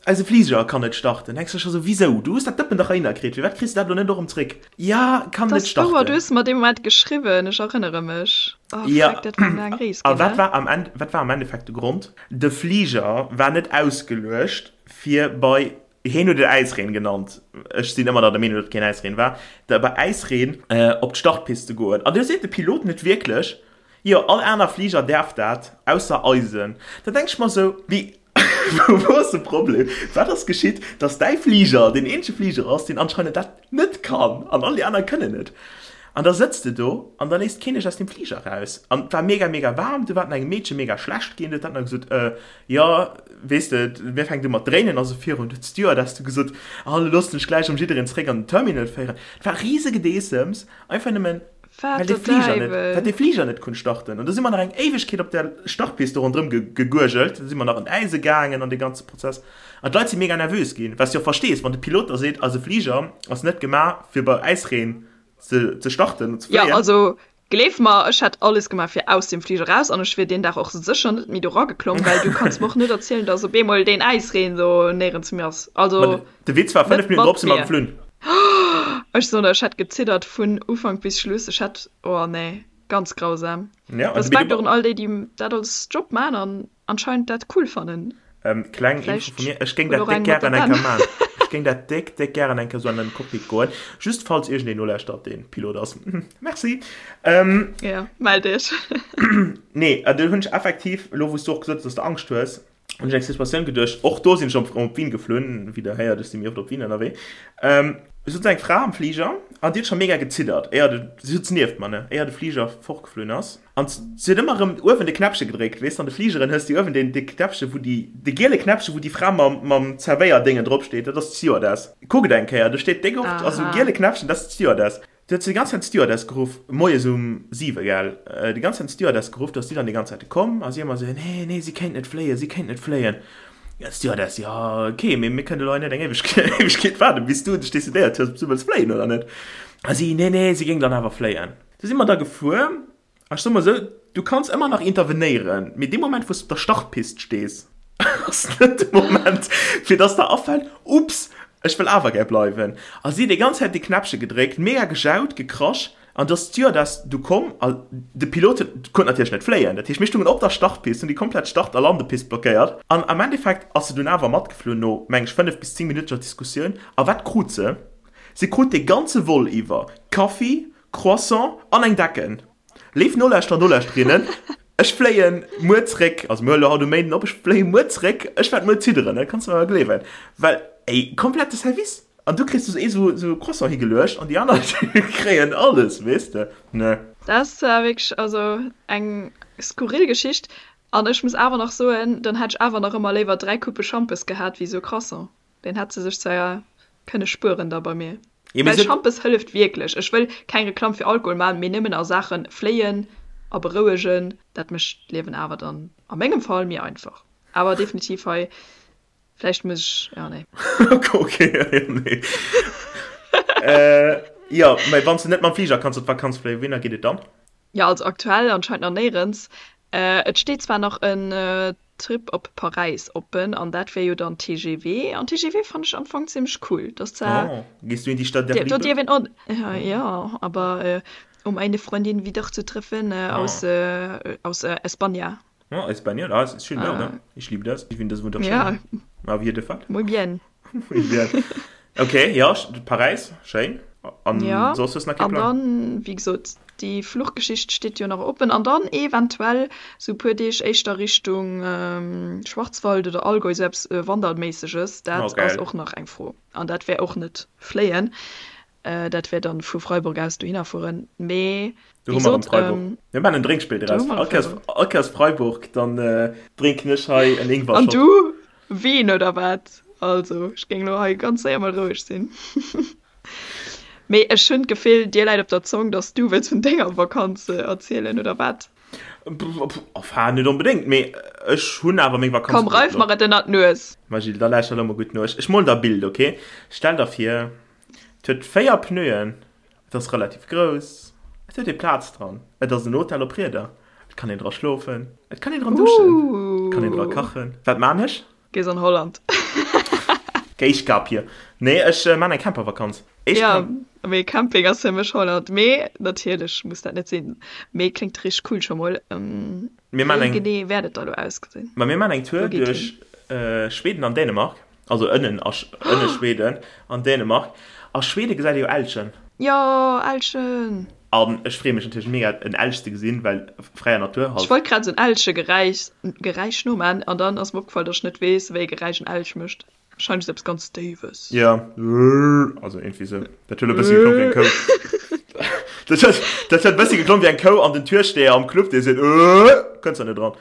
eise Fliger kann net starten. Denks de scho sou, wisou, du hues dat Dëppen dach heihinner kritt, firwat kriss de dat elo net och erëm zréck? Ja, kann Dat net ass wouer, du starten. hues mer dee Moment geschriwwen, ech erënnere mech. Oh Ja, freck, dat war eng laang Rees a ginn, wat ne? war am End, wat war am Endeffekt de Grond? De Fliger war net ausgeluecht fir bei, hien huet et Äisreen genannt, ech sinn ëmmer nach der Meenung, datt et keen Äisreen war, da bei Äisreen op d'Startpist ze goen. An do seet de Pilot net wierklech, Jo, all aner Fliger däerf dat, ausser eisen. Da denk ech mer sou, wéi, wou ass de Problem? Wat ass geschitt, dass däi Fliger deen eenzege Fliger ass, deen anscheinend dat net kann an all déi aner kënnen et? An da sëtz de do an da léisst keen dech aus deem Fliger eraus. An et war mega, mega waarm, du war et engem Meedche mega schlecht ginn, huet dat nach gesot, äh, jo, weess de, mir fänkt u mat dréinen a sou virun. Huet d'Stewardess du gesot, ah, lo loossen ech gläich erëm jiddereen zeréck an den Terminal féieren. Et war risegedeessems, einfach nëmmen. Wat Well dee der Fliger net, Däiwel! well dee Fliger net konnt starten. An do si mer nach eng Éiwegkeet op der Startpist do ronderëm ge, geguergelt. Da si mer nach an d'Äise gaangen an dee ganze Prozess. An d'Leit si mega nervös ginn, wat s de och verstees, wann de Pilot da seet, eise Fliger ass net gemaach, fir bei Äisreen ze, ze starten an ze Jo, fléien. also gleef mer, ech hätt alles gemaach fir aus deem Fliger raus an ech wier deen Dag och sécher net méi do rageklomm, well du kanns mer och net erzielen, dass op eemol deen Äisreen do néierens méi ass. Ma Also de Witz war, 5 net Minutten mat drop si mer mir. geflunn. Ech soen der, ech hätt geziddert vun Ufank bis Schluss. Ech hätt, oh nee, ganz grausam. Ja, an Respekt och un all déi, déi dat als Job man an anscheinend dat cool fannen. Ähm, kleng Info Vläicht vu mir, ech géing huet dat och déck eng mat gären der eng Kéier Ben. man. Ech géing dat déck, déck gären eng Kéier sou an den Cockpit goen. Just falls iergendeen nolauschtert, deen Pilot ass. Merci. Ähm, Ja, mell dech. nee, an do hunn ech effektiv, elo wou s du och gesot hues, dass de Angscht hues, hunn ech eng Situatioun geduecht, och do sinn ech op op Wien geflunn, wéi der héiert, ech si méi oft op Wien ënnerwee, ähm, sot eng Fra am Fliger an déi huet scho mega geziddert, éier de, si sot nieft mer, ne, éier de Fliger fortgeflunn ass, an si huet ëmmer erëm uewen de Knäppche gedréckt, weess de, an de Fligeren hues de uewen deen, dee Knäppche wou déi, de giele Knäppche wou déi Fra mam, mam Zerwéierdéngen drop steet, dat ass d'Stewardess. Kuckt eng Kéier, do steet déck oft, also Aha. giele Knäppchen, dat ass d'Stewardess. Du huet se déi ganz Zäit d'Stewardess geruff, moies um 7, gell, déi ganz Zäit d'Stewardess geruff, do ass si dann déi ganz Zäit komm a si ëmmer esou, nee, nee, si kéint net fléien, si kéint net fléien. Ja, d'Stewardess, jo, ok, mee mir kënnen elo hei net eng Éiwegkeet waarden, bis du dech decidéiert hues, ob s du wëlls fléien oder net. A si, nee, nee, si géing dann awer fléien. Du si mer da gefuer. Ech soe mol esou, du kanns ëmmer nach intervenéieren, mee dee Moment wou s de op der Startpist stees, ass net de Moment fir dass der afält, Ups, ech wëll awer gär bleiwen. A si déi ganz Zäit dee Knäppche gedréckt, mega gejaut, gekrasch an du ass d'Stewardess du komm a de Pilot huet, konnt natierlech net fléien. Dat heescht mir stungen op der Startpist, hunn déi komplett Start a Landepist blockéiert an am Endeffekt ass se dunn awer matgeflunn no, meng ech, 5 bis 10 minuteger Diskussioun. A wat krut se? Se krut dee ganze Vol iwwer Kaffi, Croissant an eng Decken. Léif Nolauschterer, Nolauschterinnen, ech fléien muer zréck, also mir huele haut um Méinden op, ech fléie muer zréck, ech wäert muer zidderen, dat kanns de mer gleewen, well ey, komplette Service an du kriss du esou esou e Croissant higeluecht an déi aner kréien alles, weess de, ne. Dat ass zwar wierklech also eng skurril Geschicht an ech muss awer nach soen, dann hätt ech awer nach ëmmer léiwer 3 Coupe Schampes gehat wéi esou e Croissant. Deen hätt se sech zwar kënne spueren da bei mir. Jo, mee Well se. Schampes hëlleft wierklech. Ech wëll keng Reklamm fir Alkohol man, mee nëmmen a Saachen fléien a berouegen, dat mécht d'Liewen awer dann a mengem Fall méi einfach. Awer definitiv hei Vläicht muss ech, ja nee. Okay, ja nee. äh, ja, mä wann s de net mam Fliger kanns op d'Vakanz fléien, wouhinner geet et dann? Ja, also aktuell anscheinend nach néierens. Äh, et steet zwar nach en Trip op Paräis oppen an dat wär jo dann TGV an TGV fannen ech am Fong zimmlech cool. Dat ass zwar. Oh, gehst du in die Stadt der Do Liebe? dierf een och, ja, aber um eine Freundin wiederzutreffen aus, aus España. Oh, España, ah, ist schön da, oder? Ich liebe das. Ich finde das wunderschön. Ja. Auf jeden Fall. Muy bien. Muy bien. Okay, ja, Paräis, schéin. An ja, soss hues nach kee Plan? An dann, wéi gesot, déi Fluchgeschicht steet jo nach oppen. An dann eventuell sou e puer Deeg éischter Richtung Schwarzwald oder Allgäu, sou eppes Wanderméisseges. Dat ass och nach eng Fro. An dat wär och net fléien. Dat wär dann vu Freiburg aus dohinner fueren. Mee wéi gesot. Mir maachen en Drénkspill draus. All Kéiers Freiburg, dann drénken ech hei en Ingwer-Shot. An du Wien oder wat? Also ech géing elo hei ganz séier mol roueg sinn. Mee ech hunn d'Gefill, dir läit op der Zong, dass du wëlls vun denger Vakanz erzielen, oder wat? Enfin, net onbedéngt, mee ech hunn awer meng Vakanz. Komm, reif mer et ënnert d'Nues. Ma Gilles, da lauschter elo mol gutt no. Ech molen der e Bild, ok? Stell der vir, et huet 4 Pneuen, Et ass relativ grouss, et huet ee Plaz dran, et ass en Hotel op Rieder, et kann een dra schlofen, et kann een dran duschen, et kann een dra kachen. Wat maan ech? Gees an Holland. Géischgapje. Nee, ech maan eng Campervakanz. Jo, mee Camping ass fir mech Holland. Mee natierlech muss dat net sinn. Mee kléngt richteg cool scho mol. Wéi genee wäert et da lo ausgesinn? Ma mir maan eng Tour duerch Schweden an Dänemark. Also ënnen a ënne Schweden an Dänemark. A Schwede gesäit ee jo Elchen. Jo, Elchen! An ech freeë mech natierlech mega en Elch ze gesinn, well fräier Natur halt. Ech wollt grad esou en Elchegeräisch Geräisch noman an dann ass mer opgefall, dass ech net weess, wéi e Geräisch en Elch mécht. Wahrscheinlech esou eppes ganz Déiwes. Jo, also iergendwéi esou. Dat huet e bëssi geklongen wéi eng Kou. Dat huet, dat huet e bëssi geklongen wéi eng Kou an den Türsteher am Club, dee seet, Kënns der net eran.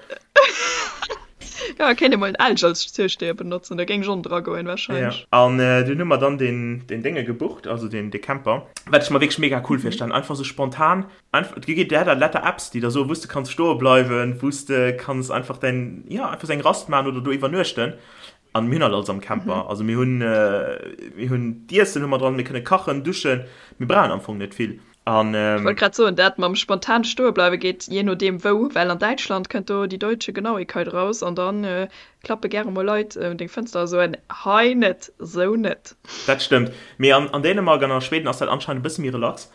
Ja, kéint ee mol en Elch als Türsteher benotzen, da géing ech och dra goen wahrscheinlech. Ja, an dunn hu mer dann deen, deen Dénge gebucht, also deen, dee Camper, wat ech mer wierklech mega cool virstellen, einfach sou spontan, einfach, et gi der letter Apps, déi der soen, wou s de kanns stoe bleiwen, wou s de kanns einfach däin, jo, einfach sou eng Rast maachen oder do iwwernuechten. An mir hunn halt alles am Camper, also mir hunn, mir hunn d'Iessen hu mer dran, mir kënne kachen, duschen, mir brauchen am Fong net vill. An, Ech wollt grad soen, dat mam spontan stoe bleiwe geet jee nodeem wou, well an Däitschland kënnt do déi deutsche Genauigkeit raus an da klappe gäre mol Leit un deng Fënster a soen, hei net, sou net. Dat stëmmt, mee an an Dänemark an a Schweden ass dat anscheinend e bësse méi relax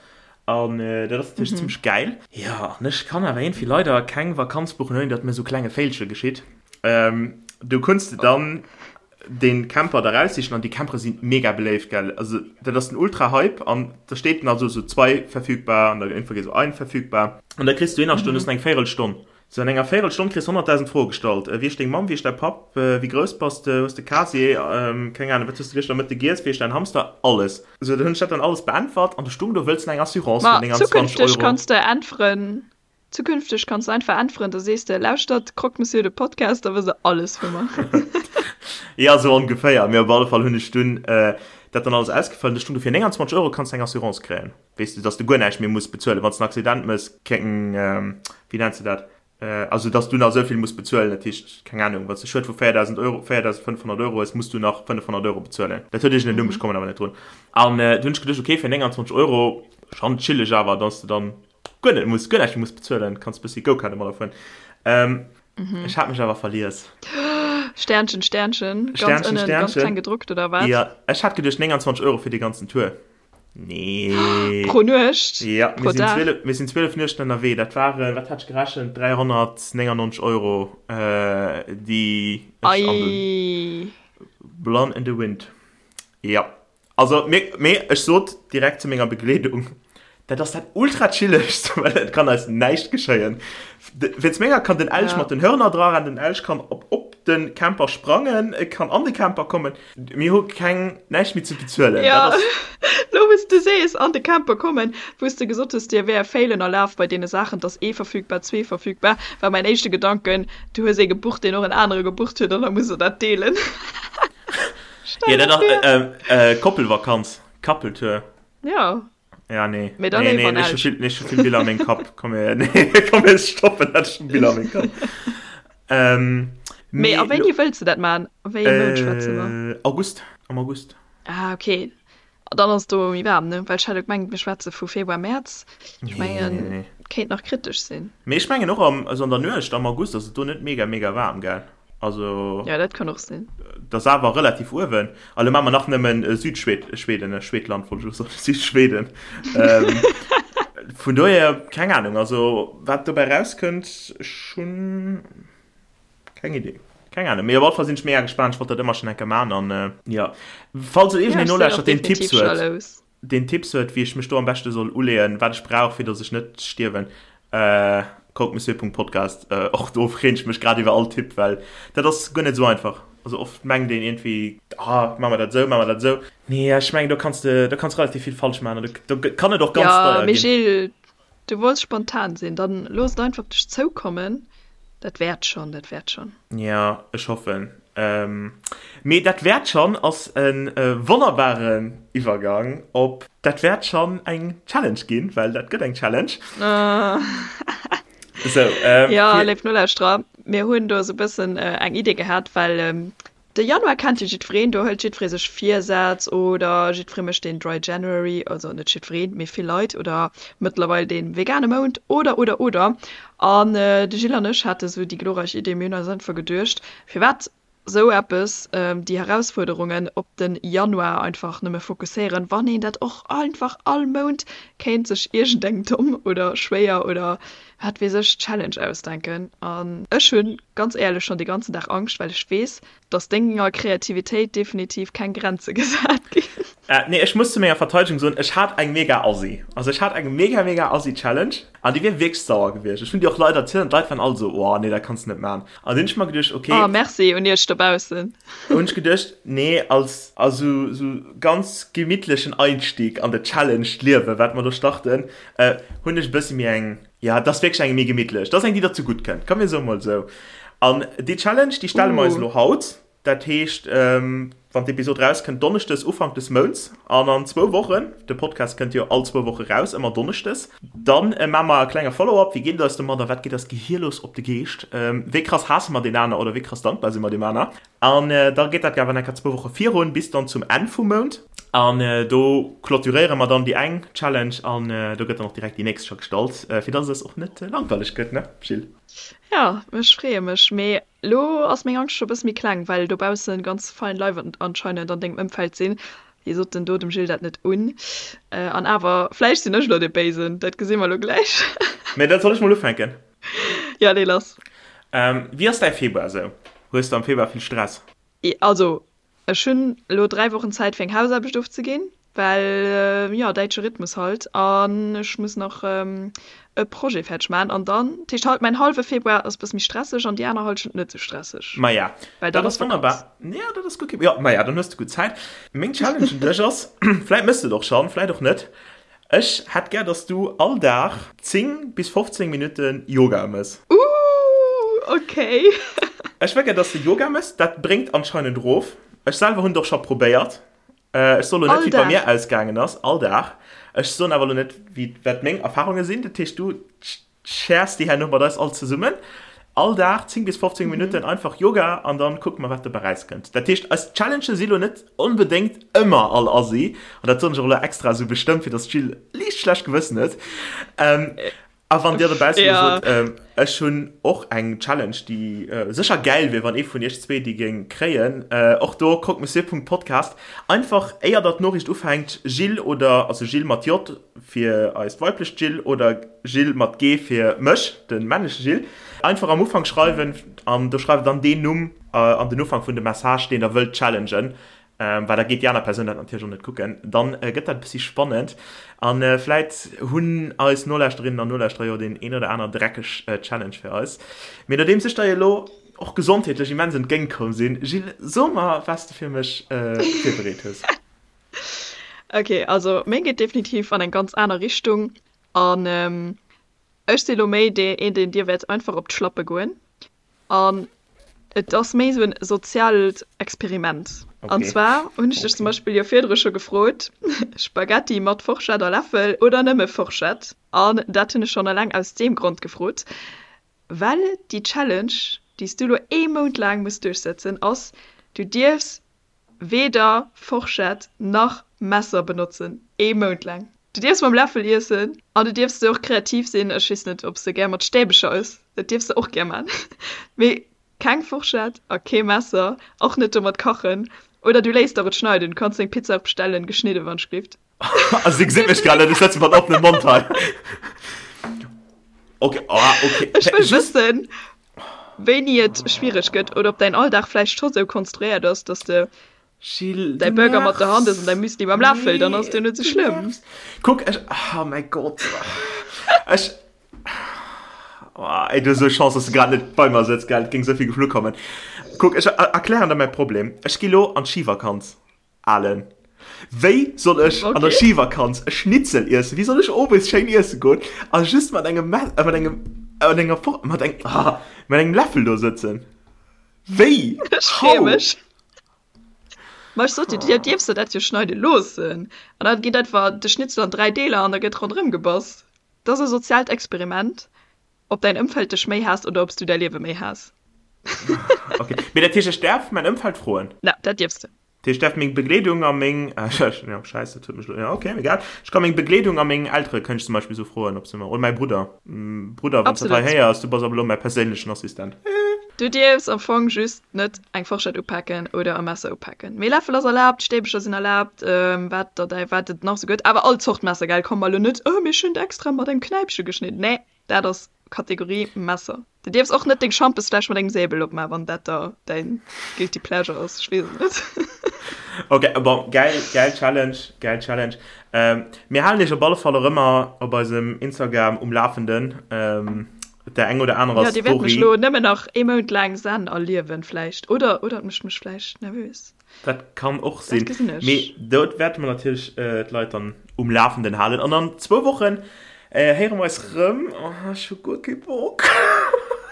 an dat ass natierlech zimmlech gäil. Jo, an ech kann awer iergendwéi leider keng Vakanz buchen, ouni datt mir sou klenge Féilche geschitt. Du kunns de dann den Camper da raussichen an déi Campere sinn mega beléift gell, also dat ass den ultra Hype an da steet dann also sou zwei verfügbar an da irgendwann geet sou ein verfügbar an da kriss du een Stonn mhm. eng Véierelstonn sou an enger Véierelstonn kriss 100.000 Froe gestallt äh, wie ass deng Mamm, wie ass däi Papp, äh, wéi grouss bass de, hues de Casier, ähm, keng Ahnung, wat hues de gëschter Mëtte giess, wéi ass däin Hamster, alles. Sou dann hunn ech dat dann alles beäntwert an du stung do wëlls de eng Assurance Ma fir 29 zukünfteg Euro. kanns de äntweren Zukünfteg kanns de einfach äntweren, da sees de, Lauschtert Croque Monsieur de Podcast, da wësst der alles vu mer. Ja, sou ongeféier. Mee op alle Fall hunn ech dunn dat dann alles ausgefëllt. Ech hunn dofir 29 Euro kanns de eng Assurance kréien, weess de, dass de guer näischt méi muss bezuelen, wann s de en Accident mëss, keng, wéi nenns de dat, also dass du nach esou vill muss bezuelen. Dat heescht, keng Ahnung, wann s de Schued vu 4.000 Euro, 4.500 Euro hues, muss du nach 500 Euro bezuelen. Dat huet iergend en Numm, ech kommen awer net drun. An du hunn ech geduecht, okay, fir 29 Euro, schonn chilleg awer, dass de dann guer net muss, guer näischt méi muss bezuelen, kanns bëssi Go-Kart mat erfueren. Ähm, mhm. Ech hat mech awer verlies. Sternchen, Sternchen, ganz Sternchen, ënnen, Sternchen. ganz kleng gedruckt oder wat? Ja, ech hat geduecht 29 Euro fir de ganzen Tour. Nee. Pro Nuecht? Ja, Pro mir sinn 12, mir sinn 12 Nuechten ënnerwee. Dat waren, wat hat ech gerechent, 399 Euro, äh, déi ech an den Blonde in the Wind. Ja. Also, mee, mee ech sot direkt zu menger Begleedung, dat ass dat ultra chillegst, well et kann eis näischt geschéien. Wéinst menger kann den Elch mat den Hörner dra rennen, den Elch kann op, op de Camper sprangen, e kann an de Camper kommen. Mir hu keng, näischt méi ze bezuelen. Ja, lo wou s de sees, an de Camper kommen, wou s de gesot hues, dir wär Failen erlaabt bei deene Saachen, dass ee verfügbar, zwee verfügbar, war mäin éischte Gedanken, du hues ee gebucht, deen och en anere gebucht huet an da musst der dat deelen. Ja, dat ass äh, äh, Koppelvakanz, Couple-Tour. Ja. Ja, nee. Mee dann nee, nee, nicht so viel, nicht so viel Biller an mengem Kapp. Komm her, nee, komm, mir stoppen dat schon Biller an mengem Kapp. ähm, Mee a wéini wëlls de dat maachen? A wéi engem Mount schwätze mer? August, am August. Ah ok, dann ass et do méi waarm, ne? Well ech hat elo gemengt, mir schwätze vu Februar, Mäerz. Ech mengen, kéint nach kritesch sinn. Mee ech mengen och am, also an der Nuecht am August ass et do net mega mega waarm, gell? Also. Ja, dat kann och sinn. Dat ass awer relativ uewen. A lo maache mer nach nëmmen Südschwed, Schweden, Schwedland wollt ech elo soen, Südschweden. Vun dohier, keng Ahnung, also wat dobäi rauskënnt, ech hunn keng Idee. Keng Ahnung, mee op alle Fall sinn ech mega gespaant, ech wollt dat ëmmer schonn eng Kéier maachen an jo, falls et iergendeen nolauschtert, deen Tipps huet. deen Tipps huet wéi ech mech do am beschte soll uleeën, wat ech brauch fir dass ech net stierwen, croquemessieur.podcast, och do freen ech mech grad iwwer all Tipp, well dat ass guer net esou einfach. Also oft mengt een iergendwéi, ah maache mer dat esou, maache mer dat esou. Nee, ech mengen do kanns de, do kanns relativ vill falsch maachen an do kann et och ganz deier ginn. Jo, mee Gilles, du wollts spontan sinn, dann looss et einfach op dech zoukommen, dat wäert schonn, dat wäert schonn. Jo, ech hoffen. Mee dat wäert schonn ass e wonnerbaren Iwwergang op dat wäert schonn eng Challenge ginn, well dat gëtt eng Challenge. Sou, Jo, léif Nolauschterer, mir hunn do esou e bëssen eng Idee gehat, well De Januar kennt jo jiddwereen, do hëlt jiddweree sech Virsätz oder jiddweree mécht deen Dry January, also net jiddwereen, mee vill Leit, oder mëttlerweil dee vegane Mount oder oder oder. An de Gilles an ech hate sou déi glorreich Idee, mir hunn eis einfach geduecht, firwat sou eppes, déi Herausfuerderungen op de Januar einfach nëmme fokusséieren, wann een dat och einfach all Mount kéint sech iergendeng domm oder schwéier oder wat weess ech, Challenge ausdenken. An ech hunn ganz éierlech schonn de ganzen Dag Angscht, well ech weess, dass denger Kreativitéit definitiv keng Grenze gesat ginn. Nee, ech muss zu menger Verteidegung soen, ech hat eng mega assi. Also ech hat eng mega mega assi Challenge an déi wier wierklech sauer gewiescht. Ech hunn déi och Leit erzielt an d'Leit waren all esou, oh nee, dat kanns de net maachen. An dunn hunn ech mer geduecht, okay. Oh, merci un iech dobaussen. Hunn ech geduecht, nee, als also sou ganz gemittlechen Einstieg an de Challenge d'Liewe wat mer do starten, hunn ech e bëssi méi eng, ja, et ass wierklech eng méi gemittlech, et ass eng, déi der zegutt kënnt, komm mir soe mol esou. An déi Challenge, déi stelle mer eis elo haut, dat heescht, wann d'Episod rauskënnt, donneschdes, Ufank des Mounts, an an zwou Wochen, de Podcast kënnt jo all zwou Woche raus, ëmmer donneschdes, dann maache mer e klenge Follow-up, wéi geet et eis domadder, wat geet eis Gehir los op de Geescht, wéi krass haasse mer deen aner oder wéi krass dankbar si mer deem aner. An da geet dat awer enker zwou Woche virun, bis dann zum Enn vum Mount. An do clôturéiere mer dann déi eng Challenge an do gëtt dann och direkt déi nächst scho gestallt, fir dass et eis och net langweileg gëtt, ne Jill? Jo, ech freeë mech. Mee elo ass meng Angscht scho e bësse méi kleng, well dobausse ganz fein Leit anscheinend an dengem Ëmfeld sinn, déi soten, do dem Jill dat net un. An awer, vläicht sinn ech elo dee Béisen, dat gesi mer elo gläich. Mee da soll ech mol ufänken? Jo, lee lass. Wéi ass däi Februar esou? Hues de am Februar vill Stress? Also, ech hunn elo 3 Wochen Zäit fir eng Hausaarbecht ofzeginn, well jo, däitsche Rhythmus halt, an ech muss nach e Projet fäerdeg maachen an dann, dat heescht halt mäin hallwe Februar ass e bësse méi stresseg an déi aner Hallschent net sou stresseg, Maja, well dann dat ass ass wonnerbar. Vakanz. Jo, dat ass gutt. Jo, maja, dann hues de gutt Zäit. Meng Challenge un dech ass, vläit méchs de et och schonn, vläit och net, Ech hätt gär dass du all Dag 10 bis 15 Minutten Yoga mëss. Ooh ok. Ech wëll gär dass de Yoga mëss, dat bréngt anscheinend rof. Ech selwer hunn et och scho probéiert. Ech soen lo net All wéi et bei Dag? mir ausgaangen ass, all Dag. Ech soen awer lo net wéi wat meng Erfahrunge sinn. Dat heescht du Shares déi herno mat eis all zesummen. All Dag 10 bis 15 Minutten einfach Yoga an dann kucke mer wat dobäi rauskënnt. Dat heescht eis Challengen si lo net onbedéngt ëmmer all assi an dat soen ech och elo extra esou bestëmmt fir dass d'Jill liicht schlecht Gewëssen huet. A wann dir dobaussen elo sot ech hunn och eng Challenge déi sécher gäil wier wann ee vun iech zwee déi géing kréien, och do croquemessieur.podcast einfach éier der d'Noriicht ufänkt Jill oder also Jill mat J fir eist weiblecht Jill oder Gilles mat G fir mech, de männleche Gilles, einfach am Ufank schreiwen an do schreift dann deen Numm an den Ufank vun dem Message, deen der wëllt challengen, well da geet déi aner Persoun dat natierlech och net kucken. Dann gëtt dat e bëssi spannend a vläit hunn eis Nolauschterinnen an Nolauschterer jo deen een oder aner dreckeg Challenge fir eis. Mee nodeems ech der jo elo och gesondheetlech immens entgéint komm sinn, Gilles, so mer, wat s de fir mech virbereet hues. Ok, also meng geet definitiv an eng ganz aner Richtung an ech si lo méi dee een deen dir wäert einfach op d'Schlappe goen an et ass méi sou en soziaalt Experiment. An zwar hunn ech dech zum Beispill jo virdru scho gefrot, Spaghetti mat Forschett a Läffel oder nëmme Forschett? An dat hunn ech schonn eleng aus deem Grond gefrot, well déi Challenge. déi s du elo ee Mount laang muss duerchsëtzen, ass, Du dierfs weder Forschett nach Messer benotzen, ee Mount laang. Du dierfs mam Läffel iessen an du dierfs och kreativ sinn, ech weess net, ob s de gär mat Stäbecher ëss, dat dierfs de och gär man, mee keng Forschett a kee Messer, och net domat kachen oder du léiss der et schneiden. Du kanns deng Pizza och bestellen, geschnidden, wann ech. Also si gesit mech grad net, ech sëtze mat oppenem Mond hei. Okay, oh, okay. Ech wëll wëssen, wéini et schwiereg gëtt oder ob däin Alldag vläicht scho sou konstruéiert ass, dass de Gilles, däi du Burger mat der Hand ëss an däi nervs. Müsli mam Läffel, dann ass et jo Nee, net sou du schlëmm. nervs. Kuck, ech, oh mäi Gott. Ech, oh, ey, du hues esou Chance, dass du grad net bei mer sëtz, gell, et géing esou vill geflu kommen. Kuck, ech erklären der mäi Problem. Ech gi lo an d'Schivakanz. Alen, Wéi soll ech an der Schivakanz e Schnitzel iessen? Wéi soll ech owes schéin iesse goen a just mat engem Messer, mat engem, mat enger Fork, mat engem, ah, mat engem Läffel do sëtzen? Wéi? Ech freeë How? mech. Ma ech sot dir, dir dierfs der dat jo schneide loossen. An da geet einfach de Schnitzel an 3 Deeler an da gëtt ronderëm gebass. Dat ass e soziaalt Experiment, ob däin Ëmfeld dech méi haasst oder ob s du däi Liewe méi haass. Okay, mee dat heescht, ech däerf mäin Ëmfeld froen? Ja, dat dierfs de. Dat heescht, ech däerf meng Begleedung a meng, jo, Schäiss, dat huet mech elo, jo, okay, egal. Ech ka meng Begleedung a meng Eltere kënnt ech zum Beispill esou froen, ob se mer, oder mäi Brudder, Brudder, wann s dat hei Absolut. héiers, du bass ab elo mäi perséinlechen Assistent. Du dierfs am Fong just net eng Forschett upaken oder e Messer upaken. Mee Läffel ass erlaabt, Stäbecher sinn erlaabt, wat der däi, wat et nach esou gëtt. Awer all Zort Messer, gell? Komm mer elo net, oh, mir hunn extra mat engem Knäipche geschnidden. Nee, dat ass Kategorie Messer. Du dierfs och net deng Schampesfläsch mat engem Säbel opmaachen, wann dat der däin guilty pleasure ass. Ech weess et net. Ok, bon, gäil, gäil Challenge, gäil Challenge. Mir halen iech op alle Fall och ëmmer op eisem Instagram um Lafenden. Der eng oder anerer Ja, dir wäert mech Story. lo nëmmen nach ee Mount laang Zen erliewen vläicht. Oder, oder et mécht mech vläicht nervös. Dat kann och Dat sinn. gesinn ech. Mee do wäerte mer natierlech d'Leit dann um Lafenden halen. An an zwou Wochen héiere mer eis rëm. Oh, ech hu guer kee Bock.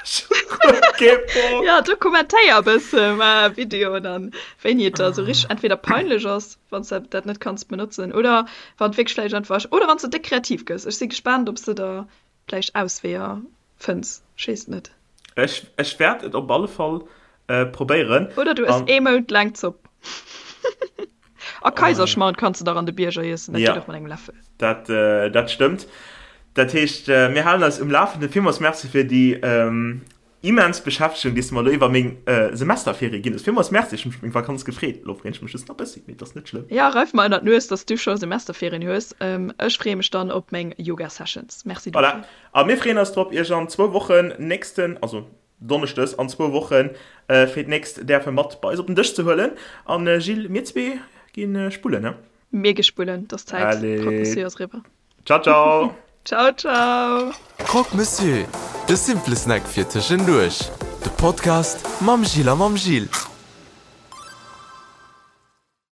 Ech hu guer kee Bock. Ja, do kommentéier e bësse mar Videoen an wéini et der esou richteg entweder peinlech ass, wann s de dat net kanns benotzen, oder wann et wierklech vläicht einfach, oder wann s de déck kreativ gëss. Ech si gespaant, ob s de der vläicht Ausweeër fënns, ech weess et net. Ech, ech wäert et op alle Fall probéieren. Oder du ëss ee Mount laang Zopp. A Kaiserschmarrn kanns de dach an de Bierger iessen, dat geet och mat engem Läffel. Dat, dat stëmmt. Dat heescht, mir halen eis um Lafenden. Villmools Merci fir déi Immens Beschäftegung, déi s de mer elo iwwer meng Semesterferie ginn hues. Villmools Merci, ech hu mech op meng Vakanz gefreet. Elo freeën ech mech just nach e bëssi, mee et ass net schlëmm. Jo, reif mer ënnert d'Nues, dass du scho Semesterferien hues. Ech freeë mech dann op meng Yoga-Sessions. Merci dofir. Voilà, a mir freeën eis drop, iech an zwou Wochen, nächsten, also Donneschdes an zwou Wochen, fir d'nächst däerfe mat bei eis op den Dësch ze huelen. An Gilles, mir zwee gi spullen, he? Mir gi spullen, 't ass Zäit. Croque Monsieur ass eriwwer. Ciao, ciao! Ciao, ciao! Croque Monsieur, de simple Snack fir tëschenduerch. De Podcast mam Gilles a mam Gilles.